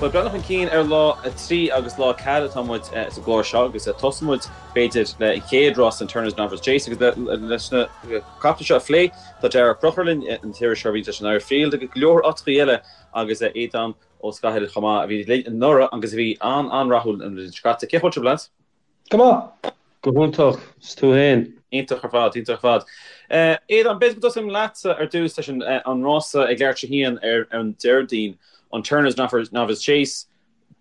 Bhuel, breathnú chun cinn ar lá 3 agus lá 4 atá muid sa gclár seo agus tosóidh muid, b'fhéidir, le an chéad rás, an Turners Novices Chase agus leis na caiple seo a phlé, tá Darragh Ó Conchúir linn, an t-iriseoir a bhí leis an Irish Field agus go leor áiteachaí eile agus Aodán Ó Scathaile chomh maith a bhí linn anuraidh agus a bhí an-an-rathúil an bhliain seo caite. Cén chaoi a bhfuil sibh, lads? Go maith. Go hiontach. 's tú fhéin? Iontach ar fad, iontach ar fad. Aodán, b'fhéidir go dtosóinn leatsa ar dtús leis an rása ag leathuair tar éis a haon ar an Déardaoin, an Turners Novice Chase.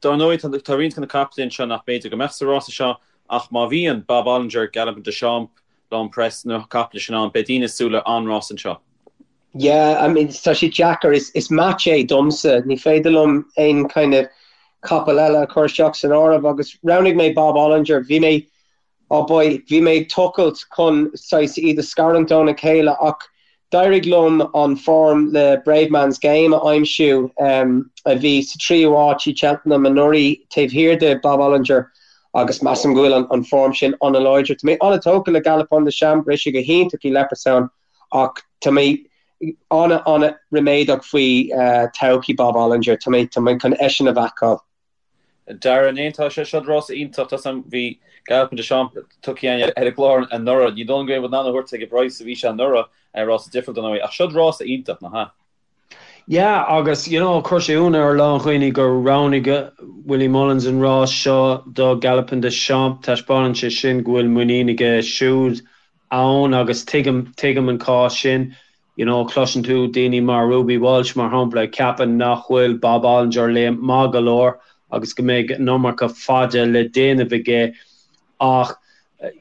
Dar ndóigh, tá roinnt de na caiple anseo nach mb'fhéidir go mbeadh sa rása seo, ach má bhíonn Bob Olinger, Galopin Des Champs, L'Homme Presse, na caiple sin ann, beidh daoine ag súil le an-rás anseo. Yeah, I mean, tá sé deacair, is match é domsa, ní féidir liom aon kind of capall eile a chur isteach san áireamh agus roghnaigh mé Bob Olinger, bhí mé, oh boy, bhí mé ag tochailt chun saghas iad a scarúint óna chéile ach d'éirigh liom an form le Bravemansgame a aimsiú a bhí sa tríú háit i Cheltenham anuraidh taobh thiar de Bob Olinger agus measaim go bhfuil an form sin an-láidir. Tá mé an-tógtha le Galopin Des Champs, rith sé go hiontach i Leopardstown Ach tá mé an-an-ríméadach faoi todhchaí Bob Olinger. Tá mé tá mé chun eisean a bhacáil. Darragh, an aontóidh sé? Seo rása iontach. Tá sam, bhí Galopin Des Champs tugtha againn ar an gclár anuraidh. Ní dóigh liom go raibh in ann a thabhairt ag an bpraghas a bhí sé anuraidh, rása difriúil dar ndóigh. Ach seo rása iontach, nach ea? Yeah, agus you know chuir sé ionadh ar a lán dhaoine gur roghnaigh Willie Mullins an rás seo do Galopin Des Champs. Taispeánann sé sin go bhfuil muinín aige siúd ann agus tuigim, tuigim an cás sin. You know, cloiseann tú daoine mar Ruby Walsh, mar shampla, ag ceapadh nach bhfuil Bob Olinger léim maith go leor agus go mbeidh an iomarca faide le déanamh aige ach,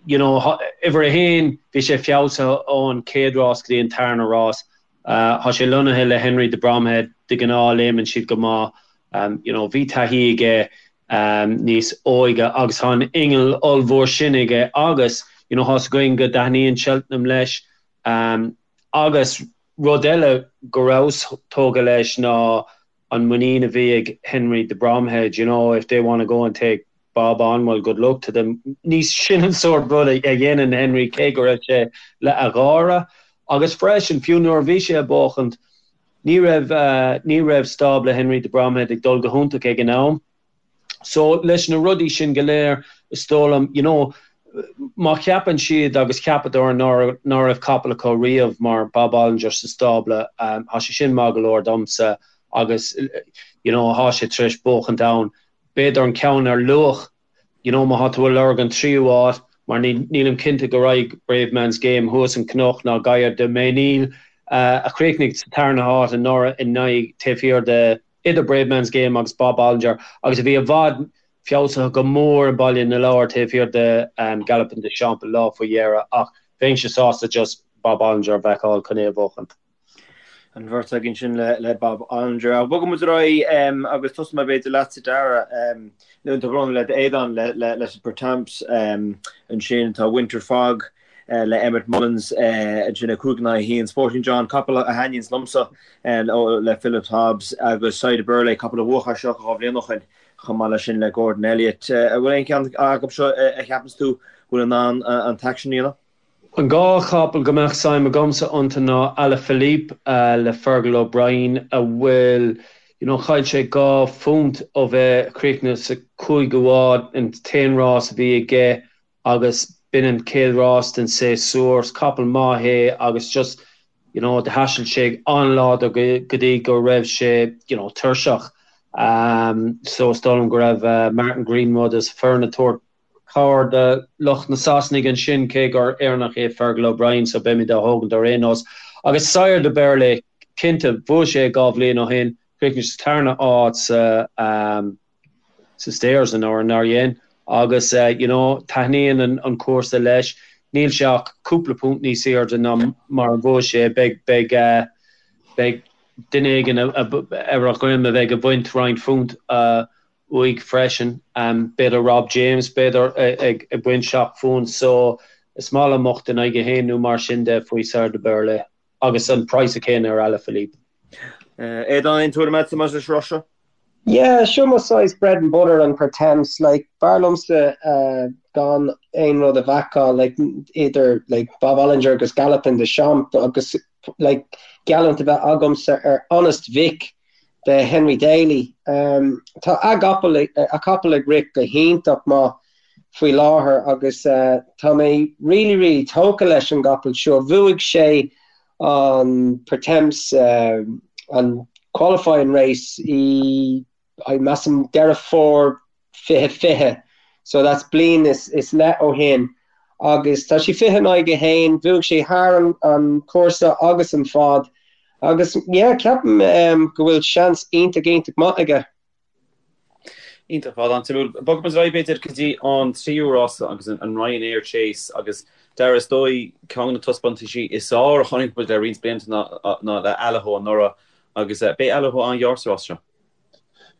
you know, uimhir a haon, bhí sé feabhsaithe ón chéad rás go dtí an tarna rás. Tá sé lonnaithe le Henry de Bromhead, de ghnáth léimeann siad go maith. You know, bhí taithí aige níos óige agus tá an inneall ollmhór sin aige agus, you know, tá's againn go dtaitníonn Cheltenham leis. Agus rud eile go rabhas tógtha leis ná an muinín a bhí ag Henry de Bromhead, you know, if they want to go and take Bob on, well, good luck to them. Ní sin an sórt rud a dhéanann Henry cé go raibh sé le a gháire. Agus freisin, fiú nuair a bhí sé ag buachaint, ní raibh, ní raibh stábla Henry de Bromhead ag dul go hiontach ag an am. So, leis na rudaí sin go léir, is dóigh liom, you know, má cheapann siad agus cheapadar ná raibh capall acu riamh mar Bob Olinger sa stábla, tá sé sin maith go leor domsa agus, you know, tá sé tar éis buachaint ann. B'fhéidir an ceann ar luach, you know, má tá tú ag lorg an tríú háit, mar nílim cinnte go raghaidh Bravemansgame thuas an cnoc ná Gaillard Du Mesnil, a chríochnaigh sa tarna háit anuraidh in aghaidh taobh thiar de idir Bravemansgame agus Bob Olinger agus a bhí i bhfad feabhsaithe go mór i mBaile na Lobhar taobh thiar de Galopin Des Champs an lá faoi dheireadh ach bheinnse sásta just Bob Olinger a bhacáil chun é a bhuachan. An bheirt againn sin le Bob Olinger. Ach bogfaidh muid ar aghaidh agus tosóidh mé b'fhéidir leatsa Darragh, nó tá brón le Aodán leis an Pertemps ansin tá Winter Fog le Emmet Mullins ansin 5 in aghaidh 1. Sporting John, capall a thaitníonns liomsa le Philip Hobbs agus Sire Du Berlais, capall a bhuaigh é seo 2 bhliain ó shin chomh maith leis sin le Gordon Elliott. An bhfuil aon cheann acu seo a cheapanns tú bhfuil in ann an t-aicsean a dhéanamh? An dá chapall go mbeadh suim agamsa iontu ná Alaphilippe le Fergal O'Brien a bhfuil, you know, chaill sé £2 ó bheith críochnaithe sa cúigiú háit an t-aon rás a bhí aige agus b'in an chéad rás den séasúr. Is capall maith é agus just, you know, do thaistil sé an-láidir go dtí go raibh sé, you know, tuirseach. So is dóigh liom go raibh Martin Greenwood is a foireann ag tabhairt cabhair do lucht na Sasanaigh ansin cé gur Éireannach é Fergal O'Brien so beimid á thógaint ar aon nós. Agus Sire Du Berlais, cinnte, bhuaigh sé 2 bhliain ó shin, chríochnaigh sa tarna háit sa, sa Stayers anuraidh, nár dhein? Agus you know taitníonn an cúrsa leis. Níl sé ach cúpla punt níos airde ná mar a bhuaigh sé. Beidh, beidh, beidh duine éigin ar a dhroim a bheidh ag baint roinnt phunt uaidh freisin. B'fhéidir Rob James, b'fhéidir, ag baint 7 phunt. So is maith liom 8 in aghaidh 1 nó mar sin de faoi Sire Du Berlais. Agus an praghas céanna ar Alaphilippe. Aodán, aon tuairim agatsa maidir leis an rás seo? Yeah, seo mo saghas bread and butter an Pertemps, like, b'fhearr liomsa gan aon rud a bhacáil, like, idir, like, Bob Olinger agus Galopin Des Champs agus, like, geallúint a bheith agamsa ar Honest Vic. de Henry Daly. Tá a gcapall, a capall ag rith go hiontach maith faoi láthair agus tá mé really really tógtha leis an gcapall seo. Bhuaigh sé an Pertemps, an qualifying race i I measaim Deireadh Fómhair 2020, so that's bliain is is leith ó shin agus tá sé 20 in aghaidh a haon, bhuaigh sé thar an cúrsa agus an fad agus yeah ceapaim go bhfuil seans iontach iontach maith aige. Iontach ar fad, an-suimiúil. Bogfaidh muid ar aghaidh b'fhéidir go dtí an tríú rása agus an Ryanair Chase agus Dara is dóigh ceann de na taispeántaisí is fearr a chonaic muid le roinnt blianta ná le Allaho anuraidh agus beidh Allaho an-ghearr sa rás seo.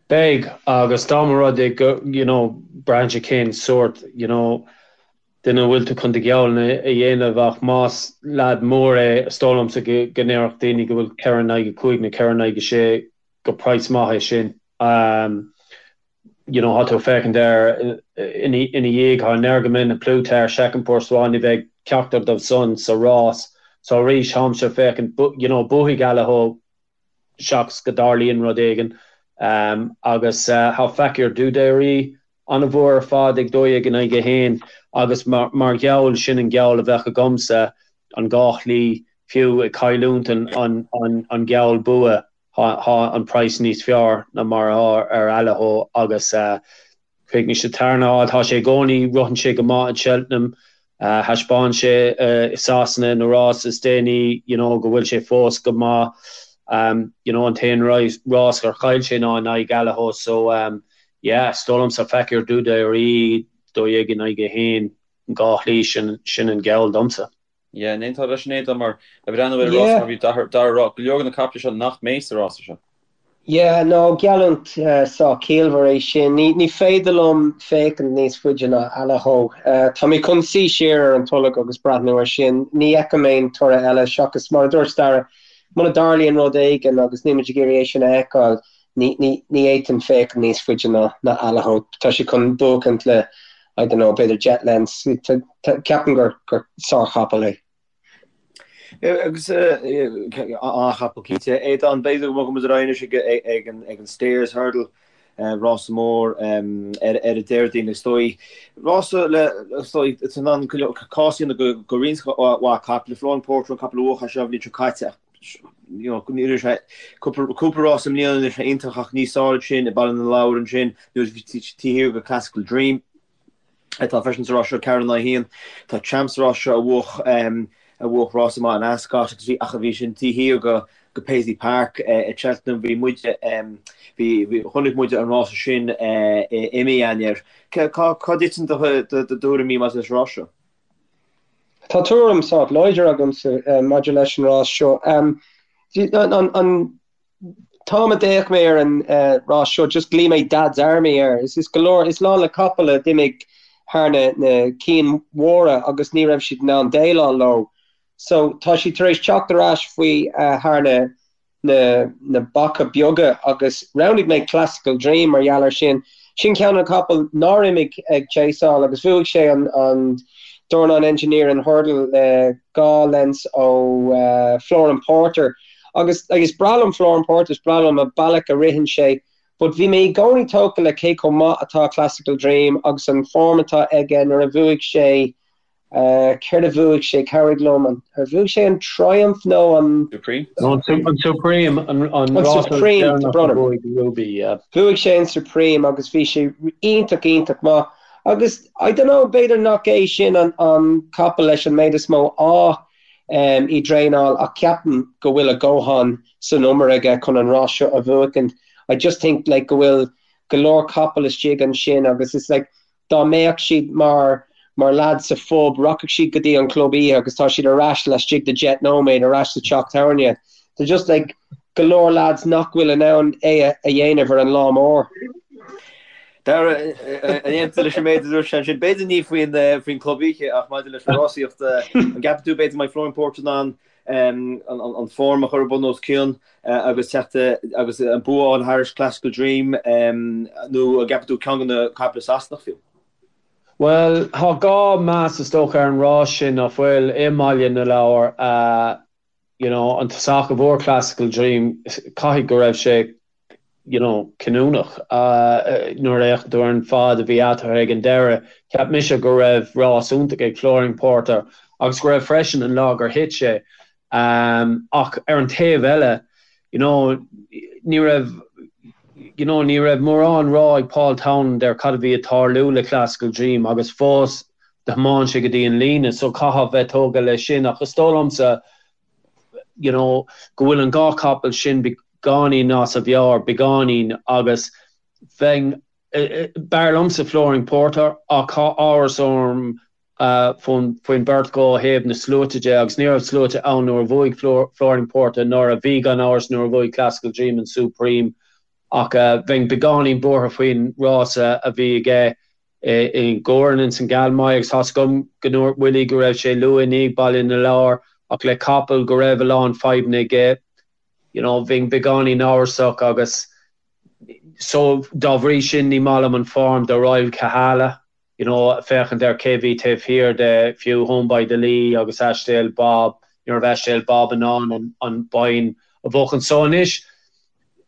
Beidh, agus dá mba rud é go, you know, braitheann sé cén sórt, you know, duine a bhfuil tú chun do gheall a dhéanamh ach más leaid mór é, is dóigh liomsa go ndéarfadh daoine go bhfuil 4 in aghaidh 5 nó 4 in aghaidh 6 gur praghas maith é sin. You know, tá tú ag féachaint air ina dhiaidh, tá Energumene, A Plus Tard, Chacun Pour Soi, ní bheidh ceachtar dóibh san sa rás. So arís, táimse ag féachaint, you know, buafaidh Allaho seachas go dtarlaíonn rud éigin. Agus tá Fakir D'Oudairies an-mhór ar fad ag 12 in aghaidh 1 agus mar gheall, sin an geall a bheadh agamsa, an dhá shlí, fiú ag cailliúint an geall bua, tá an praghas níos fearr ná mar atá ar Allaho agus Chríochnaigh sé tarna háit. Tá sé i gcónaí, ritheann sé go maith in Cheltenham. Thaispeáin sé i Sasana na rás is déanaí you know go bhfuil sé fós go maith. You know an t-aon rás gur chaill sé ná in aghaidh Allaho so yeah is dóigh liomsa Fakir D'Oudairies 12 in aghaidh 1 an dhá shlí sin sin an geall domsa. Yeah, an aontófá leis sin Aodán mar ag breathnú ar an rás mar bhí Dara a rá, go leor de na caiple seo nach mbeidh sa rása seo. Yeah, no, geallúint sách ciallmhar é sin. Ní, ní féidir liom féachaint níos faide ná Allaho. Tá mé chun suí siar ar an tolg agus breathnú air sin. Ní fheicim aon toradh eile seachas, mar a dúirt Dara, muna dtarlaíonn rud éigin agus níl muid ag iarraidh é sin a fheiceáil, ní, ní, ní fhéadfainn féachaint níos faide ná, ná Allaho. Tá sé chun buachaint le, I don't know, b'fhéidir deich lengths. Ceapaim gur, gur sárchapall é. Agus an-chapall cinnte. Aodán, b'fhéidir go mbogfaidh muid ar aghaidh anois ag an Stayers Hurdle, rása mór ar an Déardaoin is dóigh. Rása le, is dóigh, is in ann cás a dhéanamh do roinnt mhaith caiple. Flooring Porter an capall a bhuaigh é seo an bhliain seo caite ach ní raibh sé, cúpla rás i mbliana ní raibh sé iontach ach níos fearr ansin i Baile na Lobhar ansin nuair a bhí taobh thiar de Classical Dream. atá freisin sa rás seo, 4 in aghaidh 1. Tá Champ sa rás seo a bhuaigh a bhuaigh rás maith in Ascot agus bhí ach a bhí sin taobh thiar de de Paisley Park i Cheltenham. Bhí muid bhí chonaic muid an rása sin i mí Eanáir. Cá cá dtiteann do do thuairimí maidir leis an rás seo? Tá tuairim sách láidir agamsa maidir leis an rás seo. An an t-am a d'fhéach mé ar an rás seo, just ghlaoigh mé Dad's Army air. Is is go leor, is lán le capaill a d'imigh thar na na cinn mhóra agus ní raibh siad in ann déileáil leo. So tá siad tar éis teacht ar ais faoi thar na na na beacha beaga agus roghnaigh mé Classical Dream mar gheall air sin. Sin ceann de na capaill nár imigh ag chaseáil agus bhuaigh sé an an Dornan Engineering Hurdle le 2 lengths ó Flooring Porter. Agus is breá liom Flooring Porter, is breá liom an bealach a ritheann sé, but bhí mé i gcónaí tógtha le cé chomh maith atá Classical Dream agus an form atá aige nuair a bhuaigh sé, céard a bhuaigh sé, cabhraigh liom, an, ar bhuaigh sé an Triumph nó an. Supreme? An Supreme, an rás deireanach a bhuaigh Ruby, yeah. Bhuaigh sé an Supreme agus bhí sé iontach, iontach maith. Agus, I don't know, b'fhéidir nach é sin an capall leis an méid is mó ádh i dtraenáil ach ceapaim go bhfuil a dhóthain san umar aige chun an rás seo a bhuachaint. I just think like go bhfuil go leor capall istigh ansin agus it's like dá mbeadh siad mar mar lads sa phub rachadh siad go dtí an club oíche agus tá siad ar ais laistigh de 10 nóiméad ar ais sa teach tábhairne. They're just like go leor lads nach bhfuil in ann é a dhéanamh ar an lá mór. Dara, an aontaíonn tú leis an méid a dúirt sé ansin? B'fhéidir ní faoin faoin club oíche ach maidir leis an rásaíocht, an gceapann tú b'fhéidir go mbeidh Flooring Porter in ann an form a chur bun os cionn agus teacht agus an bua a fháil thairis Classical Dream nó an gceapann tú ceann de na caiple Sasanach fiú? Bhuel, tá dhá meas is dócha ar an rás sin, nach bhfuil, i mBaile na Lobhar. You know, an tosach a bhuaigh Classical Dream, caithfidh go raibh sé. you know, cinniúnach. Nuair a fhéachann tú ar an fad a bhí eatarthu ag an deireadh, cheap mise go raibh rás iontach ag Flooring Porter agus go raibh freisin an lá gur thit sé. Ach ar an taobh eile, you know, ní raibh, you know, ní raibh mórán rá ag Paul Townend ar cad a bhí ag tarlú le Klassical Dream agus fós do thiomáin sé go dtí an líne so caithfeá bheith tógtha leis sin ach is dóigh liomsa, you know, go bhfuil an dá chapall sin beagáinín as a mheabhair, beagáinín, agus bheinn, b'fhearr liomsa Flooring Porter ach tá amhras orm faoin bheirt acu ó thaobh na sluaite de agus ní raibh sluaite ann nuair a bhuaigh Flooring Porter nuair a bhí gan amhras nuair a bhuaigh Klassical Dream an Supreme ach bheinn beagáinín buartha faoin rása a bhí aige i gCorin ins an Galmoy agus tá's agam go ndúirt Willie go raibh sé luath i ndiaidh Baile na Lobhar ach le capall go raibh a lán fadhbanna aige you know bheinn beagáinín amhrasach agus so dá bhrí sin ní maith liom an form do Royal Kahala you know féachaint ar cé bhí taobh thiar de fiú Home by the Lee agus Ashdale Bob ní raibh Ashdale Bob in ann an an bonn a bhuachan so anois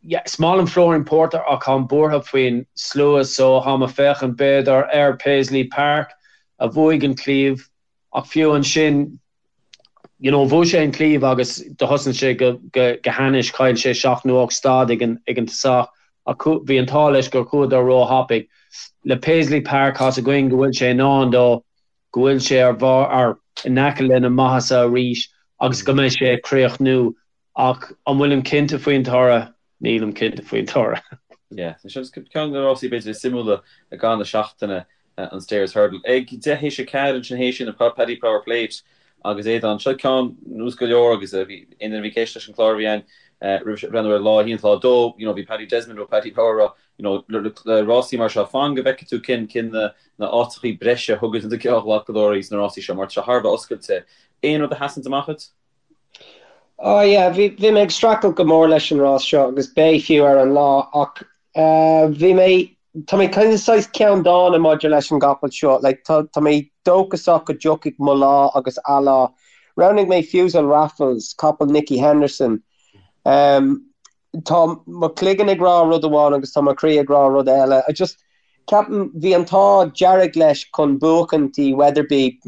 Yeah, is maith liom Flooring Porter ach táim buartha faoin slua so táim ag féachaint b'fhéidir ar Paisley Park a bhuaigh an claíomh ach fiú ansin you know bhuaigh sé an claíomh agus do thosnaigh sé go go go hainnis, chaill sé seacht nó ocht stad ag an ag an tosach ach bhí an t-ádh leis gur chuadar róthapaidh. Le Paisley Park tá's againn go bhfuil sé in ann dó, go bhfuil sé ar bharr ar in aice lena maitheasa arís agus go mbeidh sé ag críochnú Ach an bhfuilim cinnte faoin toradh? Nílim cinnte faoin toradh. Yeah, seo ceann de na rásaí b'fhéidir is suimiúla i gcaitheamh na seachtaine, an Stayers Hurdle. Ag 4:10 ansin théis sin, an Paddy Power Plate agus Aodán. Seo ceann nós go leor agus bhí aon duine a bhí ag éisteacht leis an chlár a bhí againn roimhe seo ag breathnú ar lá a haon lá a dó, you know, bhí Paddy Desmond ó Paddy Power ag rá, you know, le rásaí mar seo, fan go bhfeicfidh tú cén cén na na áiteachaí breise a thugann na geallghlacadóirí sna rásaí seo mar tá sé thar a bheith oscailte. Aon rud a sheasanns amach duit? Oh yeah, bhí, bhí mé ag streachailt go mór leis an rás seo agus beidh fiú ar an lá ach eh, bhí mé, tá mé kind of saghas ceanndána maidir leis an gcapall seo, like tá, tá mé dóchasach go dtiocfaidh mo lá agus a lá. Roghnaigh mé Fusil Raffles, capall Nicky Henderson. Um, Tá mo chloigeann ag rá rud amháin agus tá mo chroí ag rá rud eile. I just, ceapaim, bhí an t-ádh dearg leis chun buachaint i Wetherby,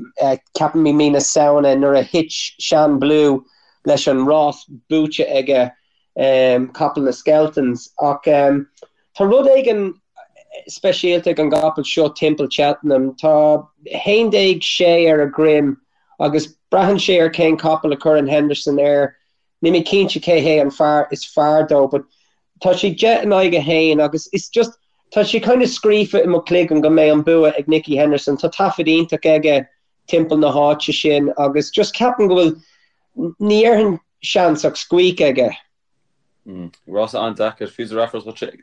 ceapaim i mí na Samhna nuair a thit Shan Blue leis an rás buaite aige, capall na Skeltons. Ach tá rud éigin speisialta ag an gcapall seo timpeall Cheltenham. Tá 11 sé ar a dhroim agus braitheann sé ar cén capall a chuireann Henderson air. Níl mé cinnte cé hé an fear is fearr dó but tá sé 10 in aghaidh 1 agus it's just tá sé kind of scríofa i mo chloigeann go mbeidh an bua ag Nicky Henderson. Tá taifead iontach aige timpeall na háite sin agus just ceapaim go bhfuil, ní dhéarfainn seans ach squeak aige. Rása an-deacair. Fusil Raffles dhuitse.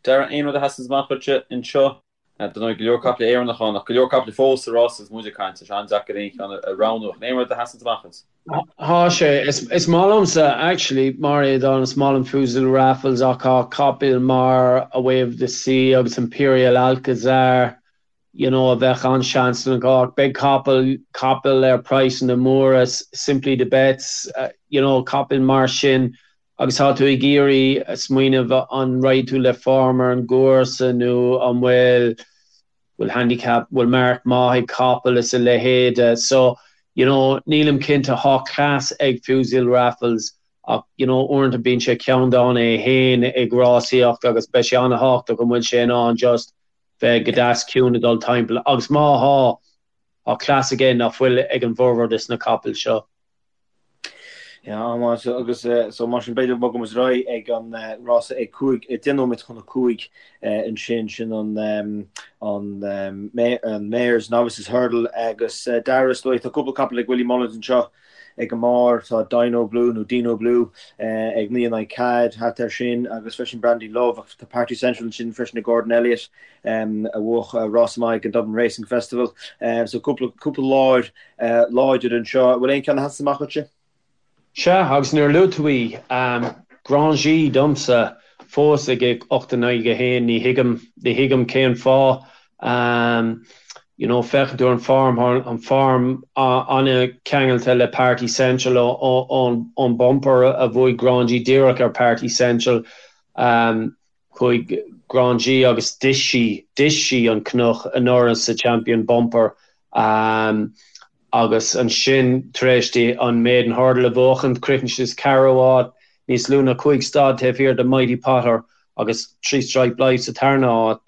Darragh, aon rud a sheasanns amach dhuitse anseo? Dar ndóigh, go leor caiple Éireannach ann, ach go leor caiple fós sa rás agus muid ag caint. Tá sé an-deacair aon cheann a roghnú. Ach aon rud a sheasanns amach duit? Tá sé. Is maith liomsa, actually, mar Aodán, is maith liom Fusil Raffles ach tá capaill mar A Way of the Sea agus Imperial Alcazar, you know, a bheadh an-seansanna acu. Ach beidh capall, capaill ar praghsanna móra, Simply the Betts, you know, capaill mar sin Agus tá tú ag iarraidh smaoineamh an raghaidh tú le form ar an gcúrsa nó an bhfuil bhfuil handicap, bhfuil marc maith ag capall is a leithéide. So, you know, nílim cinnte, tá cleas ag Fusil Raffles ach, you know, uaireanta bíonn sé ceanndána é féin ag rásaíocht agus beidh sé an-thábhachtach an bhfuil sé in ann just bheith go deas ciúin ag dul timpeall agus má thá, tá cleas aige nach bhfuil ag an bhformhór des na capaill seo. Yeah, an-mhaith agus so mar sin b'fhéidir bogfaidh muid ar aghaidh ag an rása ag 5, 10 nóiméad chun a 5 ansin, sin an an an Mares Novices Hurdle agus Darragh is dóigh tá cúpla capall ag Willie Mullins anseo ag an mbarr, tá Dino Blue nó Dino Blue ag 9 in aghaidh 4 thart air sin agus freisin Brandy Love ach tá Party Central ansin freisin ag Gordon Elliott a bhuaigh rás maith ag an Dublin Racing Festival so cúpla cúpla láir láidir anseo. Bhfuil aon cheann a sheasann amach dhuitse? Sea, agus nuair a luaigh tú í, Grand G domsa fós ag 8 in aghaidh 1, ní thuigim, ní thuigim cén fáth. You know, féachann tú ar an form, tá an form an-cheangailte le Party Central ón bumper a bhuaigh Grand G díreach ar Party Central. Chuaigh Grand G agus d'ith sí, d'ith sí an cnoc anuraidh sa Champion Bumper agus ansin tar éis di an Maiden Hurdle a bhuachaint, chríochnaigh sí sa ceathrú háit, níos lú ná 5 stad taobh thiar de Mighty Potter agus Three Stripe Life sa tarna háit.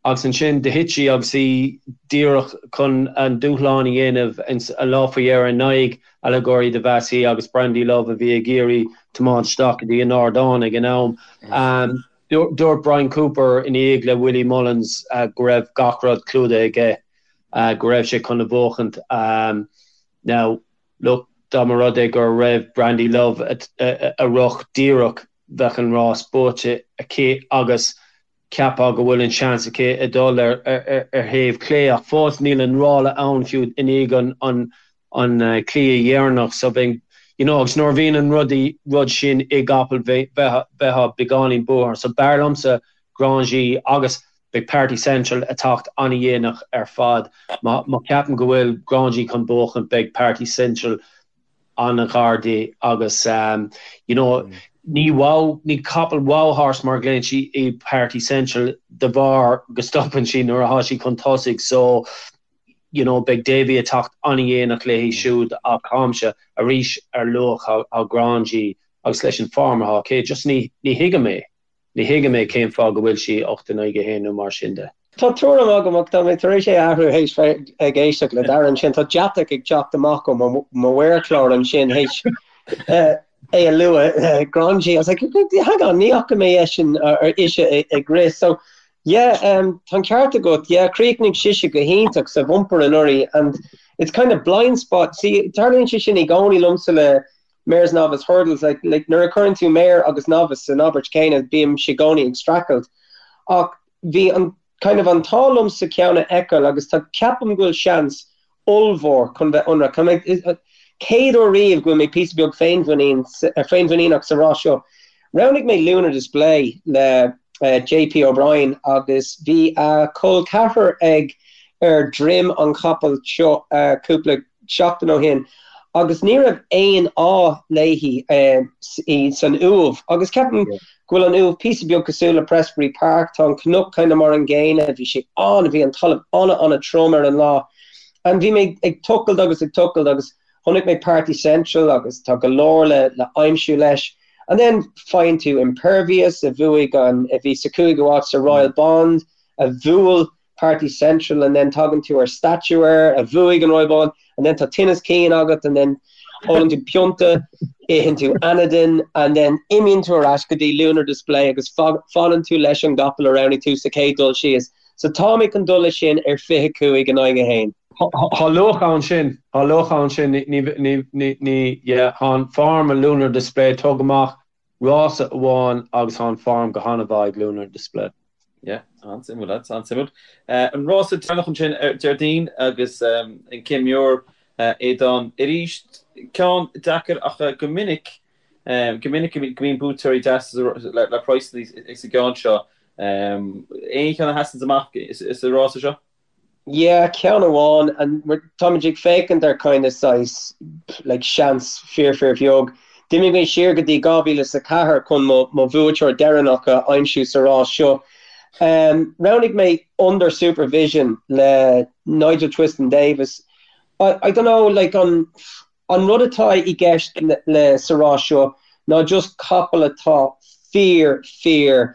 Agus ansin do thit sí agus í díreach chun an dúshlán a dhéanamh an lá faoi dheireadh in aghaidh Allegorie De Vassy agus Brandy Love a bhí ag iarraidh tiomáint isteach go dtí an ardán ag an am. Dúirt Bryan Cooper ina dhiaidh le Willie Mullins go raibh gach rud clúdaithe aige, go raibh sé chun a bhuachaint. Now, look, dá mba rud é go raibh Brandy Love a rith díreach bheadh an rás buaite aici agus Cheapfá go bhfuil an seans aici a dhul ar thaobh clé ach fós níl an ráille ann fiú i ndiaidh an cliath dheireanach so bheinn you know agus nuair a bhíonn an rud rud sin i gcapall bheifeá beagáinín buartha so b'fhearr liomsa Grand G agus beidh Party Central ag teacht an-dhéanach ar fad. Má cheapaim go bhfuil Grand G chun buachan beidh Party Central an-ghar di agus you know ní wow, ní capall wow horse mar a ghlaonn sí í Party Central de bharr go stopann sí nuair atá sí chun tosaigh so you know beidh Davy ag teacht an-dhéanach léi siúd ach táimse arís ar luach thá Grand G agus leis an form atá aici just ní ní thuigim é. Ní thuigim é cén fáth go bhfuil sí 8 in aghaidh 1 nó mar sin de. Tá tuairim agam ach tá mé tar éis é a athrú théis bheith ag éisteacht le Darragh ansin. Tá deatach ag teacht amach ó mo mhéarchlár ansin théis é a lua. Grand G. I was like, hang on, ní fhaca mé eisean or ise ag rith. So, yeah, um, tá an ceart agat. Yeah, chríochnaigh sise go hiontach sa bhumper anuraidh and it's kind of blind spot. See, tarlaíonn sé sin i gcónaí liomsa le Mares Novice Hurdles, like, like, nuair a chuireann tú mare agus novice san abairt céanna, bímse i gcónaí ag streachailt. Ach bhí an, kind of, an t-ádh liomsa ceann a fheiceáil agus tá, ceapaim go bhfuil seans ollmhór chun bheith ionraic. Tá mé, chéad uair riamh go bhfuil mé píosa beag féinmhuinín, féinmhuiníneach sa rás seo. Roghnaigh mé Lunar Display le JP O'Brien agus bhí a chol ceathrar ag ar droim an chapaill seo cúpla seachtain ó shin agus ní raibh aon ádh léi san Uaimh agus ceapaim go bhfuil an Uaimh píosa beag cosúil le Prestbury Park, tá an cnoc kind of mar an gcéanna, bhí sé an, bhí an talamh an-an-trom ar an lá and bhí mé ag tochailt agus ag tochailt agus chonaic mé Party Central agus tá go leor le le aimsiú leis and then faigheann tú Impervious a bhuaigh an, a bhí sa cúigiú háit sa Royal Bond a bhuail Party Central and then tagann tú ar Statuaire a bhuaigh an Royal Bond and then tá tinneas cinn agat and then ólann tú pionta, itheann tú Anadin and then imíonn tú ar ais go dtí Lunar Display agus fanann tú leis an gcapall a roghnaigh tú sa chéad dul síos. So tá mé chun dul leis sin ar 25 in aghaidh 1. Tá luach ann sin, tá luach ann sin, ní, ní, ní, ní, yeah, tá an form ag Lunar Display, tóg amach rása amháin agus tá an form go han-mhaith ag Lunar Display. Yeah, an-suimiúil, lads, an-suimiúil. An rása deireanach ansin ar Déardaoin agus an Céim Muir Aodán arís. Ceann deacair ach go minic, go minic go mbíonn buaiteoirí deasa le praghsanna sa gceann seo. Aon cheann a sheasann amach sa rása seo? Yeah, ceann amháin, and táimid ag féachaint ar kind of saghas like seans fíor fíor bheag. D'imigh mé siar go dtí 2004 chun mo mo bhuaiteoir deireanach a aimsiú sa rás seo. Um, roghnaigh mé Under Supervision le Nigel Twiston Davies. I, I don't know, like an an rud atá i gceist le, le sa rás seo ná just capall atá fíor fíor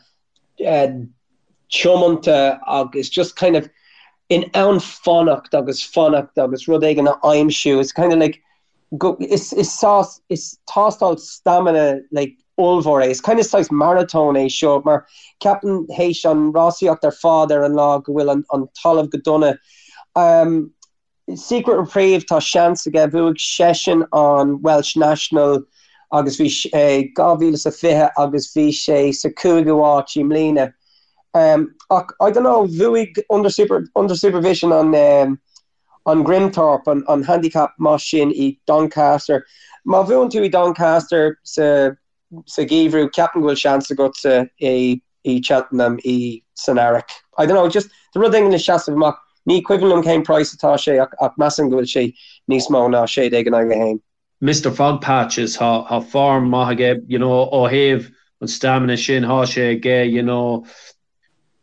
tiomanta agus just kind of in ann fanacht agus fanacht agus rud éigin a aimsiú. It's kind of like go, is, is sás, is tástáil stamina like ollmhór é. Is kind of saghas maratón é seo mar ceapaim théis an rásaíocht ar fad ar an lá go bhfuil an, an talamh go dona. Um, Secret Reprieve, tá seans aige, bhuaigh seisean an Welsh National agus bhí sé 2020 agus bhí sé sa cúigiú háit i mbliana. Ach I don't know, bhuaigh Under Super, Under Supervision an an Grimthorpe, an an handicap maith sin i Doncaster. Má bhuann tú i Doncaster sa sa gheimhreadh, ceapaim go bhfuil seans agatsa i i Cheltenham i san earrach. I don't know, just tá rud éigin le seasamh amach. Ní cuimhin liom cén price atá sé ach ach measaim go bhfuil sé níos mó ná 16 in aghaidh 1. Mister Fogpatches, tá tá form maith aige, you know, ó thaobh. An stamina sin, thá sé aige, you know.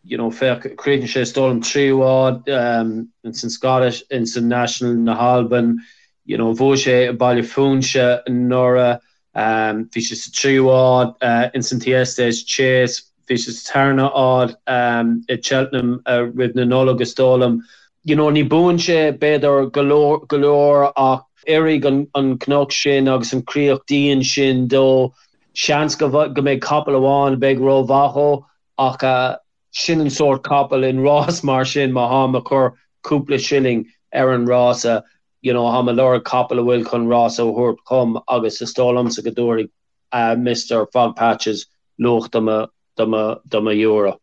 You know, féach, chríochnaigh sé is dóigh liom tríú háit ins an Scottish, ins an National na hAlban, you know, bhuaigh sé i Baile Phúinse anuraidh, bhí sé sa tríú háit ins an Thyestes Chase, bhí sé sa tarna háit i Cheltenham roimh na Nollag is dóigh liom. You know, ní buann sé b'fhéidir go leor, go leor ach oirfidh an cnoc sin agus an chríoch dian sin dó. Seans go mbeidh capall amháin a bheidh rómhaith dhó Ach sin an sórt capaill in rás mar sin, má tháim ag cur cúpla shilling ar an rása, you know, tháim ag lorg capall a bhfuil chun rása a thabhairt dhom agus is dóigh liomsa go dtabharfaidh Mister Fogpatches luach do mo, do mo, do mo euro.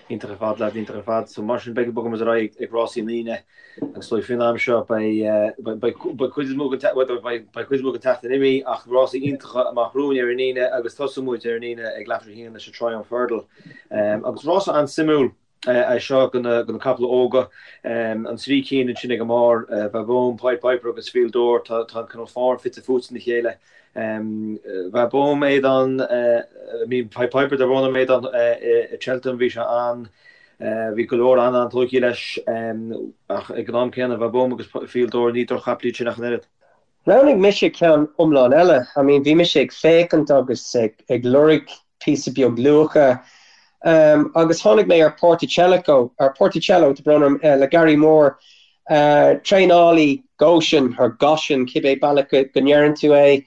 Iontach ar fad, lads, iontach ar fad. So mar sin beidh, bogfaidh muid ar aghaidh ag rásaí an Aoine agus is dóigh faoin am seo beidh, beidh, beidh cuid is mó den, beidh, beidh cuid is mó den tseachtain imithe ach rásaí iontacha amach romhainn ar an Aoine agus tosóidh muid ar an Aoine ag leathuair tar éis a haon leis an Triumph Hurdle. Agus rása an-suimiúil é seo do na, do na capaill óga. An trí cinn ansin ag an mbarr, Vauban, Pied Piper agus Fil Dor, tá, tá an cineál form fite fuaite ina chéile. Vauban, Aodán, I mean Pied Piper tá brón orm Aodán i Cheltenham bhí sé an, bhí go leor an-an-tógtha leis ach ag an am céanna Vauban agus Fil Dor ní droch-chapaill iad sin ach an oiread. Roghnaigh mise ceann iomlán eile. I mean bhí mise ag féachaint agus ag lorg píosa beag luacha agus tháinig mé ar Porticellico, ar Porticello, tá brón orm, le Gary Moore, traenálaí Goshen, or Goshen, cibé bealach go ndeireann tú é.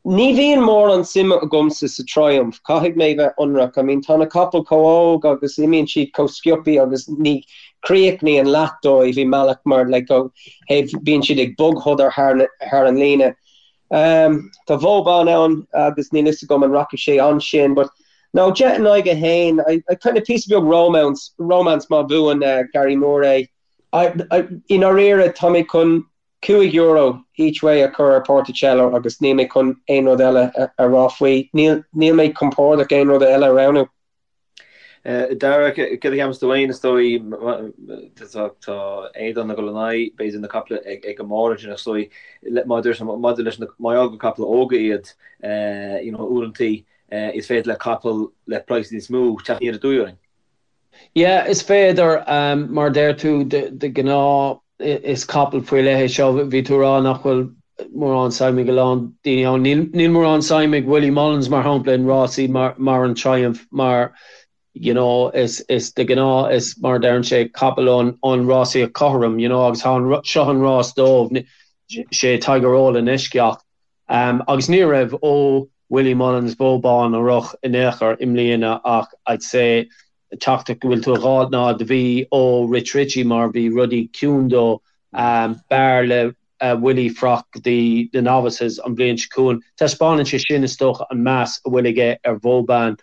Ní bhíonn mórán suime agamsa sa Triumph, caithfidh mé bheith ionraic. I mean tá na capaill chomh óg agus imíonn siad chomh sciobthaí agus ní chríochnaíonn leath dóibh i mbealach mar like ó thaobh bíonn siad ag bogshodar thar an líne. Tá Vauban ann agus níl fhios agam an rachaidh sé ansin but no 10 in aghaidh 1, I, I kind of píosa beag romance, romance má bhuann Gary Moore é. I, I, i ndáiríre tá mé chun €5 each way a chur ar Porticello agus níl mé chun aon rud eile a rá faoi. Níl, níl mé compordach aon rud eile a roghnú. Dara, céard a cheapas tú féin, is dóigh, tá Aodán ag dul in aghaidh, b'fhéidir, na caiple ag an mbarr ansin, is dóigh, maidir leis na, mar gheall gur caiple óga iad, you know, uaireantaí, is féidir le capall le praghas níos mó teacht aniar aduaidh orainn. Yeah, is féidir, mar a deir tú, de ghnáth is capall faoi leith é seo. Bhí tú ag rá nach bhfuil mórán suim ag a lán daoine ann. Níl, níl mórán suim ag Willie Mullins, mar shampla, in rásaí mar, mar an Triumph, mar, you know, is, is de ghnáth, is mar a deireann sé, capall ón, ón rásaíocht chothrom, you know, agus tá an, seo an rás dóibh, sé Tiger Roll an eisceacht. Agus ní raibh ó Willie Mullins, Vauban a rith in aon chor i mbliana ach I'd say teachtaireacht go bhfuil tú a dh'fháilt ná do bhí ó Rich Ricci mar bhí rudaí ciúin dó. B'fhearr le Willie fanacht go dtí na novices an bhliain seo chugainn. Taispeánann sé sin is dócha an meas a bhfuil aige ar Vauban.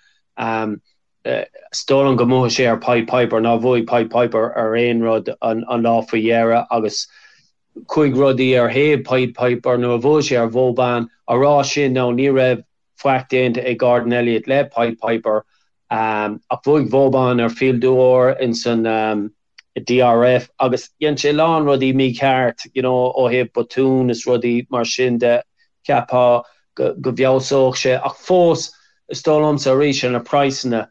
Is dóigh liom go mbuafaidh sé ar Pied Piper. Nár bhuaigh Pied Piper ar aon rud an lá faoi dheireadh agus chuaigh rudaí ar thaobh Pied Piper nuair a bhuaigh sé ar Vauban. Á rá sin now ní raibh faic déanta ag Gordon Elliott le Pied Piper ach bhuaigh Vauban ar Fil d'Or ins an DRF agus dhein sé a lán rudaí mícheart you know ó thaobh botún is rudaí mar sin de. Cheapfá go bhfeabhsódh sé ach fós is dóigh liomsa arís ar na praghsanna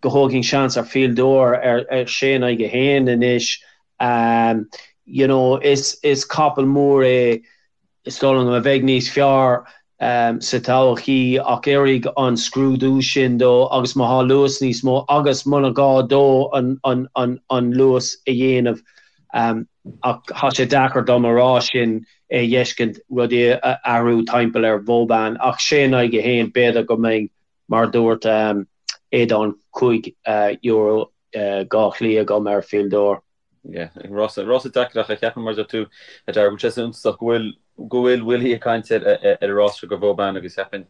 go dtógfainn seans ar Fil d'Or ar sé in aghaidh 1 anois. You know is is capall mór é is dóigh liom a bheidh níos fearr sa todhchaí ach oirfidh an scrúdú sin dó agus má thá luas níos mó agus muna gá dó an an an an luas a dhéanamh ach thá sé deacair dom a rá sin é dh'fheiscint rudaí a athrú timpeall ar Vauban ach sé in aghaidh 1 b'fhéidir go mbeidh mar a dúirt Aodán €5 dhá shlí agam ar Fil d'Or. Yeah, rása, rása deacair ach ceapaim mar a deir tú a Dara go bhfuil sé suntasach go bhfuil, go bhfuil Willie ag caint ar ar an rás seo do Vauban agus cheapfainn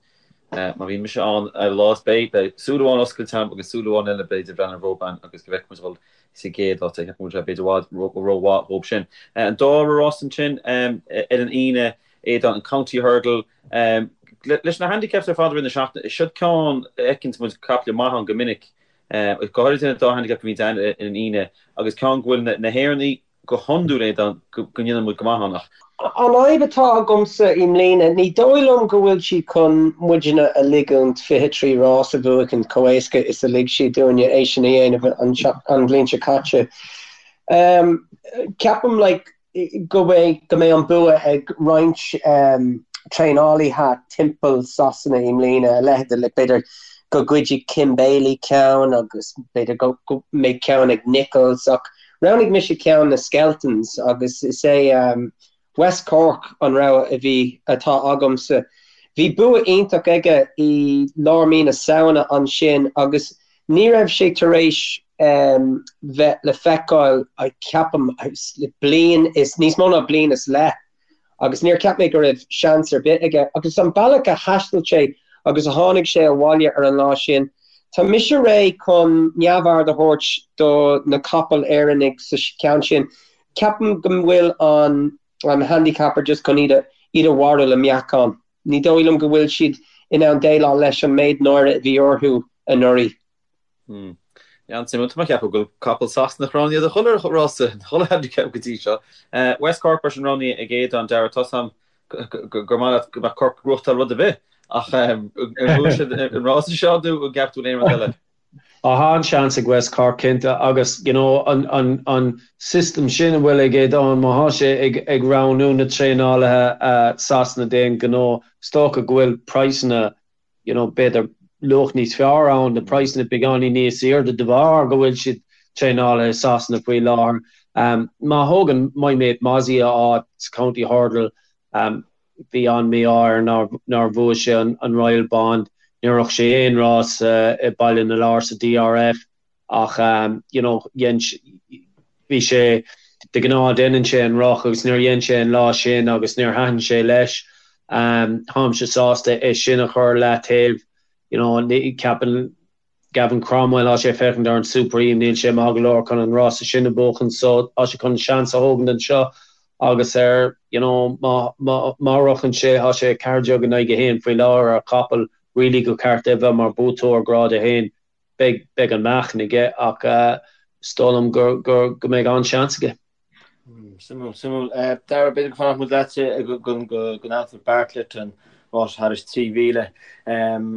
má bhíonn mise ann ar an lá is beidh, beidh súil amháin oscailte agam agus súil amháin eile b'fhéidir ag breathnú ar Vauban agus go bhfeicfidh muid dhul sa gcéad áit. Ceapaim go bhfuil sé b'fhéidir i bhfad rómhaith dhób sin. An dara rás ansin ar an Aoine, Aodán, an County Hurdle. Leis na handicaps ar fad i rith na seachtaine, siod ceann a fheiceanns muid caiple maith ann go minic. Go háirithe na dá handicap a bhíonn ann ar an Aoine agus ceann go bhfuil na hÉireannaigh. go hiondúil Aodán go ndéanann muid go maith ann ach. An fhadhb atá agamsa i mbliana, ní dóigh liom go bhfuil siad chun muidne a ligiúint 23 rás a bhuachaint chomh éasca is a lig siad dúinne é sin a dhéanamh an bhliain seo caite. Ceapaim like go mbeidh go mbeidh an bua ag roinnt traenálaithe timpeall Sasana i mbliana, a leithéid de like b'fhéidir go gcuirfidh Kim Bailey ceann agus b'fhéidir go mbeidh ceann ag Nicholls ach Roghnaigh mise ceann na Skeltons agus is é West Cork an rogha a bhí, atá agamsa. Bhí bua iontach aige i lár mí na Samhna ansin agus ní raibh sé tar éis bheith le feiceáil, ceapaim, le bliain is, níos mó ná bliain is leith. agus níor cheap mé go raibh seans ar bith aige. Agus an bealach a thaistil sé agus a tháinig sé abhaile ar an lá sin, tá mise réidh chun neamhaird a thabhairt do na capaill Éireannaigh sa cheann sin. Ceapaim go bhfuil an an handicapper just chun iad a iad a mharú le meáchan. Ní dóigh liom go bhfuil siad in ann déileáil leis an méid náire a bhí orthu anuraidh. Hmm. An-suimiúil. Tá mé ag ceapadh go bhfuil capall Sasanach roghnaithe do chuile rása, chuile handicap go dtí seo. West Cork mar sin roghnaithe ag Aodán, Dara, tá 's a'm gur maith leat go mbeadh Cork ag gnóthachtáil rud ar bith ach an bhfuil siad an rása seo nó an gceapann tú aon rud eile? Tá an-seans ag West Cork cinnte agus you know an an an system sin a bhfuil ag Aodán má thá sé ag ag roghnú na traenálaithe Sasana d'aon ghnó is dócha go bhfuil praghsanna you know, b'fhéidir luach níos fearr ann, na praghsanna beagáinín níos airde de bharr go bhfuil siad traenáilte i Sasana faoi láthair. Má thógann My Mate Mozzie a áit sa County Hurdle, bhí an-mhí-ádh air nár bhuaigh sé an Royal Bond, níor rith sé aon rás i Baile na Lobhar sa DRF. Ach you know dhein bhí sé de ghnáth déanann sé an roth agus níor dhein sé an lá sin agus níor thaitin sé leis. Táimse sásta é sin a chur leataobh you know ceapann Gavin Cromwell tá sé ag féachaint ar an Supreme níl sé maith go leor chun an rása sin a bhuachan so tá sé chun seans a thógaint anseo agus ar you know má má má rochann sé tá sé 14 in aghaidh 1 faoi láthair ar chapall really gur ceart é bheith mar buaiteoir grád 1. Beidh, beidh an meáchan aige ach is dóigh liom gur, gur, go mbeidh an-seans aige. Suimiúil, suimiúil. Dara, b'fhéidir go fanfadh muid leatsa go, go, go, go Anthony Bartlett an rás thairis 3,000